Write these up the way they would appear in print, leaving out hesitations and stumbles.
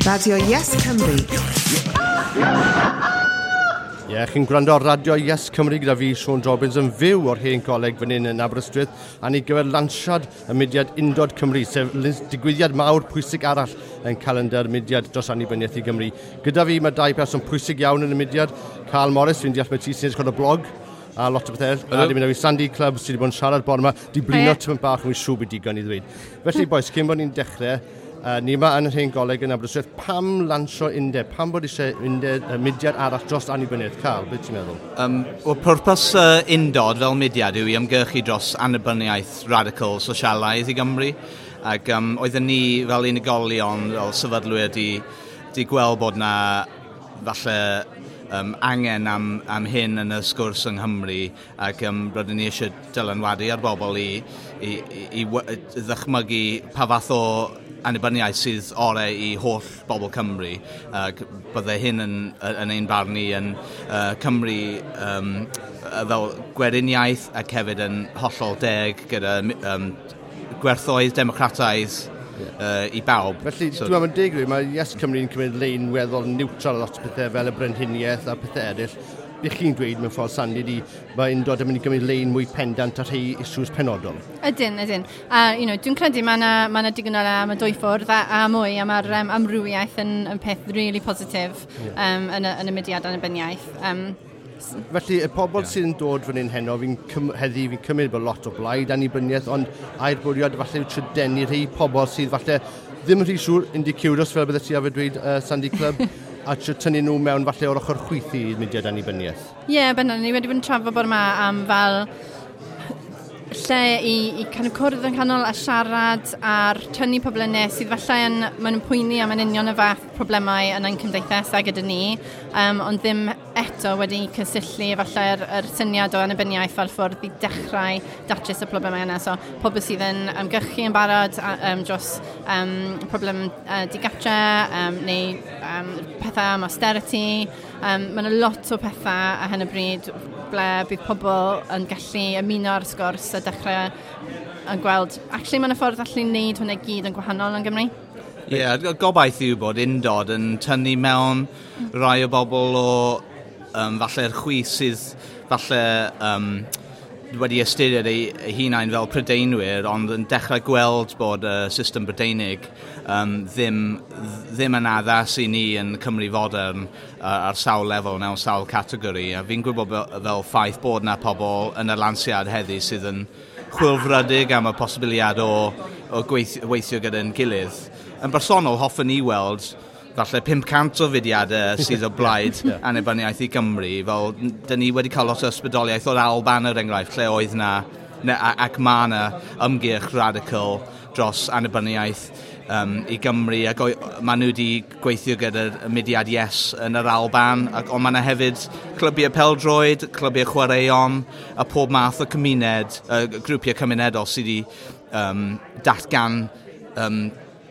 Radio Yes Cymru. Ie, yeah, chi'n gwrando ar Radio Yes Cymru gyda fi, Siôn Jobbins, yn fyw o'r Hen Goleg fan hyn yn Aberystwyth, a ni gyfer lansiad y mudiad Undod Cymru, sef digwyddiad mawr pwysig arall yn calendar mudiad dros annibyniaeth i Gymru. Gyda fi mae dau person pwysig iawn yn y mudiad, Carl Morris, fi'n deall mae ti sy'n edrych ar y blog, a lot o bethau. A di mynd â fi Sandy Clubb sydd wedi bod yn siarad bore yma, di blino tymaid bach, yn siŵr bod digon i ddweud. Felly, boys, cyn bod ni'n dechrau, ni yma yn yr Hen Goleg yn Aberystwyth, pam lansio undeb? Pam bod eisiau undeb, mudiad arall dros annibyniaeth? Carl, beth ti'n meddwl? Wel, pwrpas Undod fel mudiad yw i ymgyrchu dros annibyniaeth radical sosialaidd i Gymru. Ac oedden ni fel unigolion, fel sefydlwyr, di gweld bod na falle angen am hyn yn y sgwrs yng Nghymru, ac rydyn ni eisiau dylanwadu ar bobl i ddychmygu pa fath o annibyniaeth sydd orau i holl bobl Cymru. Ac bydde hyn yn ein barn ni yn Cymru fel gweriniaeth ac hefyd yn hollol deg gyda gwerthoedd democrataidd i bawb. Felly, so, dwi'n meddwl yn deg, mae Yes Cymru'n cymryd lein weddol neutral lot o pethau fel y brenhiniaeth a pethau eraill. Be chi'n dweud mewn ffordd, Sandy, di, mae Undod yn mynd i gymryd lein mwy pendant ar rhai issues penodol? Ydyn, ydyn. A, dwi'n credu mae yna ma digon o le am y dwy ffwrdd a mwy, a mae'r amrywiaeth yn peth really positif yn y mudiad annibyniaeth. Felly, y pobl sydd yn dod fan hyn heno, heddi, fi'n cymryd bod lot o blaid annibyniaeth, ond ai'r bwriad falle yw trio denu rhai pobl sydd falle ddim yn rhy siŵr, indicurious, fel bydde ti arfer dweud, Sandy Clubb, a trio tynnu nhw mewn falle o'r ochr chwith i mudiad annibyniaeth. Ie, yeah, bendant, ni wedi bod yn trafod bod yma am fel lle i kind of cwrdd yn canol a siarad a'r tynnu pobl yn nes sydd falle yn, maen nhw'n poeni am yn union y fath problemau yn ein cymdeithas a gyda ni, ond ddim eto wedi cysylltu falle'r yr syniad o annibyniaeth fel ffordd i dechrau datrys y problemau yna. So, pobl sydd yn ymgyrchu yn barod dros problem digatre neu pethau am austerity. Mae yna lot o pethau ar hyn o bryd ble bydd pobl yn gallu ymuno ar y sgwrs a dechrau yn gweld, actually mae yna ffordd allu wneud hwnna i gyd yn gwahanol yn Gymru. Ie, yeah, gobaith yw bod Undod yn tynnu mewn rai o bobl o falle'r chwith sydd falle wedi ystyried eu hunain fel Prydeinwyr, ond yn dechrau gweld bod y system Brydeinig ddim yn addas i ni yn Cymru fodern ar sawl lefel mewn sawl categori. A fi'n gwybod fel ffaith bod na pobl yn y lansiad heddi sydd yn chwilfrydig am y posibiliad o weithio gyda'n gilydd. Yn bersonol, hoffwn ni weld falle 500 o fudiadau sydd o blaid annibyniaeth i Gymru. Fel, dyn ni wedi cael lot o ysbrydoliaeth o'r Alban, er enghraifft, lle oedd na, ac mae yna ymgyrch radical dros annibyniaeth i Gymru, ac maen nhw wedi gweithio gyda'r mudiad Yes yn yr Alban, ac, ond mae yna hefyd clybiau pêl-droed, clybiau chwaraeon, a pob math o cymuned, grwpiau cymunedol sydd wedi datgan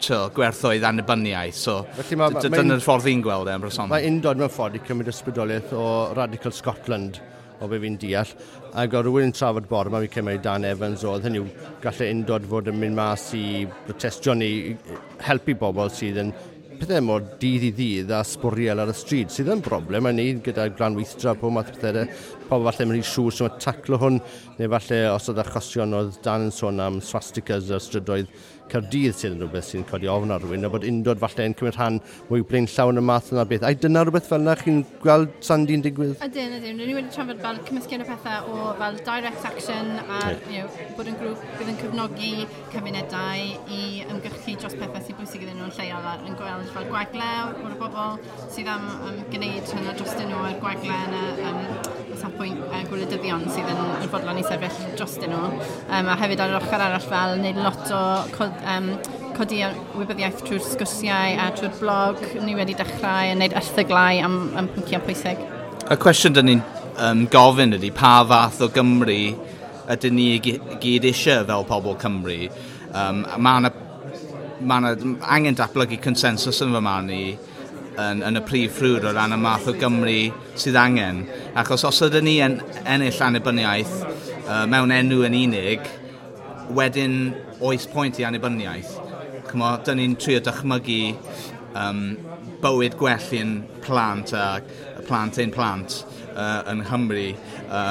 gwerthoedd annibyniaeth. So, felly dyna'r ffordd fi'n gweld e yn bersonol. Mae Undod mewn ffordd i cymryd ysbrydoliaeth o Radical Scotland, o be fi'n deall, ac o rhywun yn trafod bore yma, fi'n cymryd Dan Evans oedd, hynny yw, gallai Undod fod yn mynd mas i protestio neu helpu bobl sydd yn pethau mor dydd i ddydd a sbwriel ar y stryd, sydd yn broblem, a ni gyda glanweithdra, pob math o pethau, pobl falle mynd i siŵr sy'n taclo hwn, neu falle os oedd achosion oedd Dan yn sôn am swastikas ar strydoedd Caerdydd sydd yn rhywbeth sy'n codi ofn ar rhywun, a bod Undod falle yn cymryd rhan mwy blaenllaw yn y math yna beth. Ai dyna rhywbeth fel yna chi'n gweld Sandy'n digwydd? Ydyn, ydyn. Rydyn ni wedi trafod fel cymysgedd o pethau o fel direct action a bod yn grŵp bydd yn cefnogi cymunedau i ymgyrchu dros pethau sy'n bwysig iddyn nhw'n lleol a yn gweld fel gwagle o'r bobl sydd am gwneud hynna drostyn nhw a'r gwagle yn y safbwynt gwleidyddion sydd yn fodlon i sefyll drostyn nhw. A hefyd ar yr ochr arall fel wneud lot o codi wybyddiaeth trwy'r sgwrsiau a trwy'r blog. Ni wedi dechrau yn wneud erthyglau am pynciau pwysig. Y cwestiwn dyn ni'n gofyn ydy pa fath o Gymru ydyn ni gyd eisiau fel pobl Cymru. Mae yna angen datblygu consensus yn fy marn i yn y prif ffrwd o ran y math o Gymru sydd angen. Achos os ydyn ni yn ennill annibyniaeth mewn enw yn unig, wedyn oes pwynt i annibyniaeth. Ch'mo, dyn ni'n trio dychmygu bywyd gwell i'n plant a plant ein plant yn Nghymru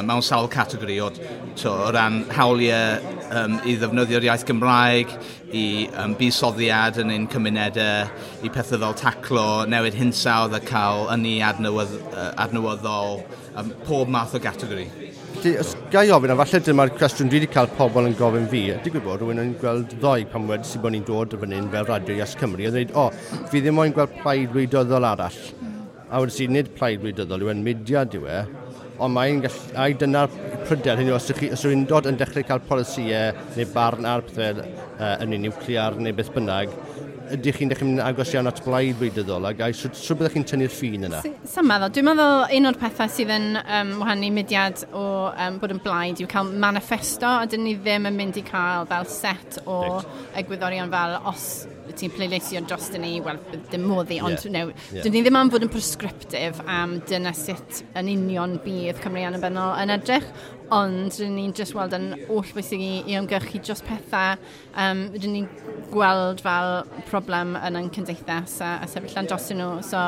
mewn sawl categori o ran hawliau i ddefnyddio'r iaith Gymraeg, i buddsoddiad yn ein cymunedau, i pethau fel taclo newid hinsawdd a cael ynni adnewyddol, pob math o gategori. Felly, os ga i ofyn, a falle dyma'r cwestiwn dwi wedi cael pobl yn gofyn fi, digwydd bod rhywun yn gweld ddoe pan wedi bod ni'n dod fan hyn fel Radio Yes Cymru, a dweud, "O, fi ddim moyn gweld plaid wleidyddol arall." A wedi si, nid plaid wleidyddol yw e'n, mudiad yw e, ond mae'n gallu, ai dyna'r pryder hynny, os yw'n dod yn dechrau cael polisïau neu barn ar pethau ynni niwclear neu beth bynnag, ydych chi'n dechrau mynd yn agos iawn at blaid wleidyddol, ac ai sut byddech chi'n tynnu'r ffin yna? Sa'n meddwl. Dwi'n meddwl un o'r pethau sydd yn wahanu mudiad o bod yn blaid yw cael manifesto, a dyn ni ddim yn mynd i cael fel set o egwyddorion fel os ti'n pleidleisio dros ni, wel, dim modd i, ond no, dyn ni ddim am fod yn prescriptive am dyna sut yn union bydd Cymru annibynnol yn edrych, ond rydyn ni'n just weld yn oll bwysig i ymgyrchu dros pethau rydyn ni'n gweld fel problem yn ein cymdeithas a sefyll lan dros nhw. So,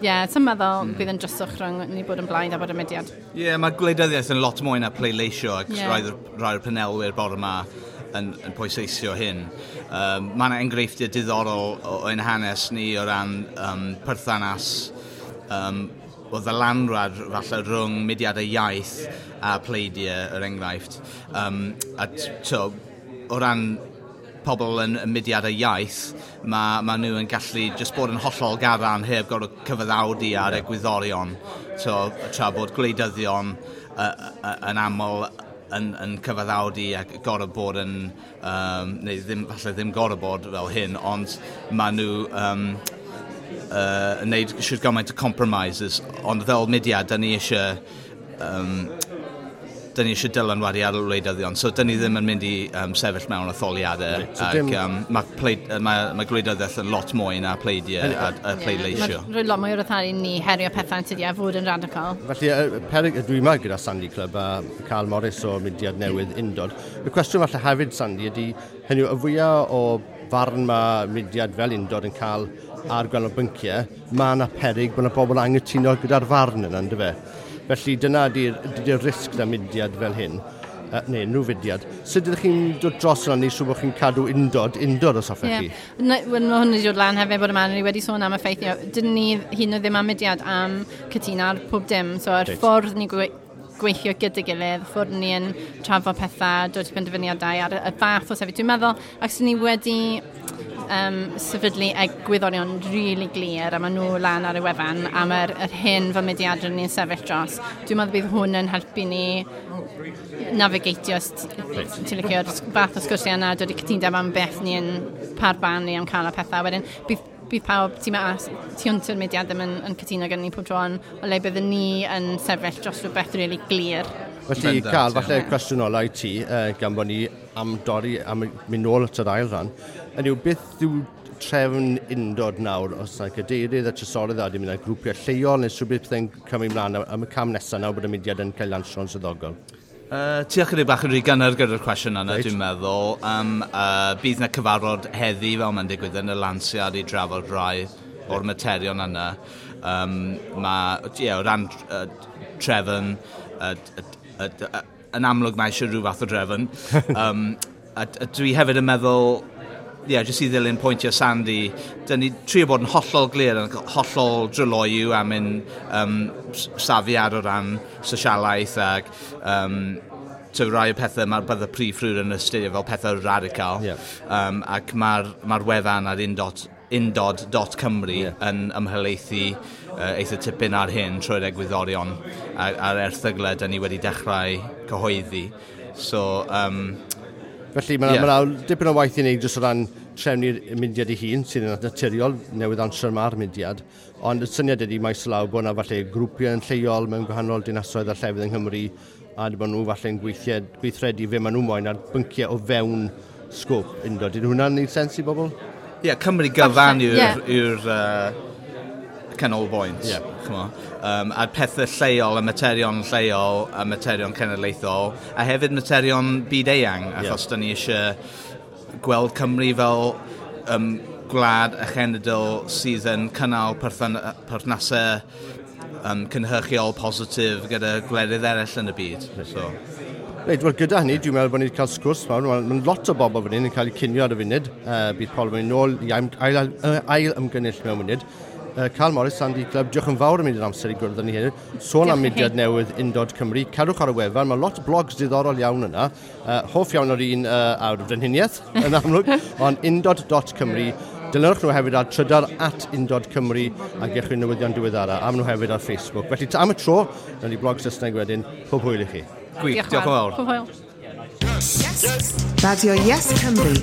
ie, yeah, sa'n meddwl bydd yn dryswch rhwng ni bod yn blaid a bod yn mudiad. Ie, yeah, mae gwleidyddiaeth yn lot mwy na pleidleisio ac rai o'r panelwyr bore yma yn pwysleisio hyn. Mae yna enghreifftiau diddorol o ein hanes ni o ran perthynas o ddylanwad falle rhwng mudiadau iaith a pleidiau, er enghraifft. A to, o ran pobl yn y mudiadau iaith, mae nhw yn gallu just bod yn hollol gadarn heb gorfod cyfaddawdu ar egwyddorion. So, tra bod gwleidyddion yn aml yn cyfaddawdu ac gorfod bod yn, neu ddim, falle ddim gorfod bod fel hyn, ond maen nhw yn neud siwr gymaint o compromises, ond fel mudiad, da ni eisiau dylanwadu ar y wleidyddion, so da ni ddim yn mynd i sefyll mewn etholiadau. So ac mae gwleidyddiaeth yn lot mwy na pleidiau a pleidleisio. Mae'n rhoi lot mwy o ryddhad i ni herio pethau yn tydi a fod yn radical. Felly, perig, dwi yma gyda Sandy Clubb a Carl Morris o mudiad newydd Undod. Y cwestiwn falle hefyd, Sandy, ydy, hynny yw, y fwyaf o farn mae mudiad fel Undod yn cael ar gwahanol bynciau, mae yna perig bod yna bobl angytuno gyda'r farn yna, ynddo fe? Felly dyna ydy'r risg na mudiad fel hyn, neu unrhyw fudiad. Sut ydych chi'n dod dros yna neu siŵr bod chi'n cadw undod os hoffech chi? Wel, mae hwn wedi dod lan hefyd bod yma, ni wedi sôn am y ffaith, dyn ni hyd yn oed ddim am mudiad am cytuno ar pob dim, so yr ffordd ni gweithio gyda gilydd, ffordd ni yn trafod pethau, dod i benderfyniadau ar y fath o sefyll. Dwi'n meddwl, ac ni wedi sefydlu egwyddorion rili really glir a maen nhw lan ar y wefan am yr hyn fel mudiad rydyn ni'n sefyll dros. Dwi'n meddwl bydd hwn yn helpu ni navigatio, os ti'n licio'r fath o sgwrsiau yna, dod i cytundeb am beth ni yn parban ni am cael y pethau. Wedyn, bydd pawb tu mas, tu hwnt i'r mudiad ddim yn cytuno gyda ni pob tro, ond o le byddwn ni yn sefyll dros rhywbeth rili really glir. Felly, Carl, falle cwestiwn ola i ti, gan bod ni am dorri, am mynd nôl at yr ail ran. Yny yw, beth yw trefn Undod nawr, os yna cadeirydd a trysorydd a di mynd â grwpiau lleol, neu rhywbeth pethau'n cymryd mlaen am y cam nesaf nawr bod y mudiad yn cael lansio'n swyddogol? Ti ychydig bach yn rhy gynnar gyda'r cwestiwn yna, dwi'n meddwl. Bydd na cyfarfod heddi fel mae'n digwydd yn y lansiad i drafod rai o'r materion yna. Mae, yeah, o ran trefn, yn amlwg mae eisiau rhyw fath o drefn. A dwi hefyd yn meddwl, ie, yeah, jyst i ddilyn pwyntiau Sandy, dyn ni trio bod yn hollol glir, yn hollol dryloyw am ein safiad o ran sosialaeth ac to rai o pethau mae'r bydde prif ffrwd yn ystyried fel pethau radical. Ac mae'r wefan ar undod.cymru yn ymhelaethu eitha tipyn ar hyn trwy'r egwyddorion a'r erthyglau dyn ni wedi dechrau cyhoeddi. So, Felly mae ma dipyn o waith i wneud jyst o ran trefnu'r mudiad ei hun, sydd yn naturiol, newydd lansio ma'r mudiad. Ond y syniad ydy maes o law bod yna falle grwpiau yn lleol mewn gwahanol dinasoedd a llefydd yng Nghymru, a bod nhw falle'n gweithredu fe maen nhw moyn ar bynciau o fewn sgôp Undod. Ydy hwnna'n neud sens i bobl? Ie, yeah, Cymru gyfan yw'r canolbwynt. Ch'mo. A pethau lleol, a materion lleol, a materion cenedlaethol, a hefyd materion byd eang, achos da ni eisiau gweld Cymru fel gwlad a chenedl sydd yn cynnal perthnasau cynhyrchiol positif gyda gwledydd eraill yn y byd. So. Reit, wel gyda hynny, dwi'n meddwl bod ni wedi cael sgwrs mawr. Mae lot o bobl fan hyn yn cael eu cinio ar y funud. Bydd pobl yn mynd nôl i ail ymgynnull mewn munud. Carl Morris, Sandy Club, diolch yn fawr am mynd i'r amser i gwrdd â ni heddiw. Sôn am mudiad newydd Undod Cymru. Cerwch ar y wefan, mae lot o blogs diddorol iawn yna. Hoff iawn o'r un ar frenhiniaeth, yn amlwg, ond undod.cymru. Dilynwch nhw hefyd ar trydar @undodcymru a gewch chi newyddion diweddara. Am nhw hefyd ar Facebook. Felly am y tro, nawn ni blog Saesneg wedyn. Pob hwyl i chi. Gwych, diolch yn fawr. Pob hwyl. Yes. Radio Yes Cymru.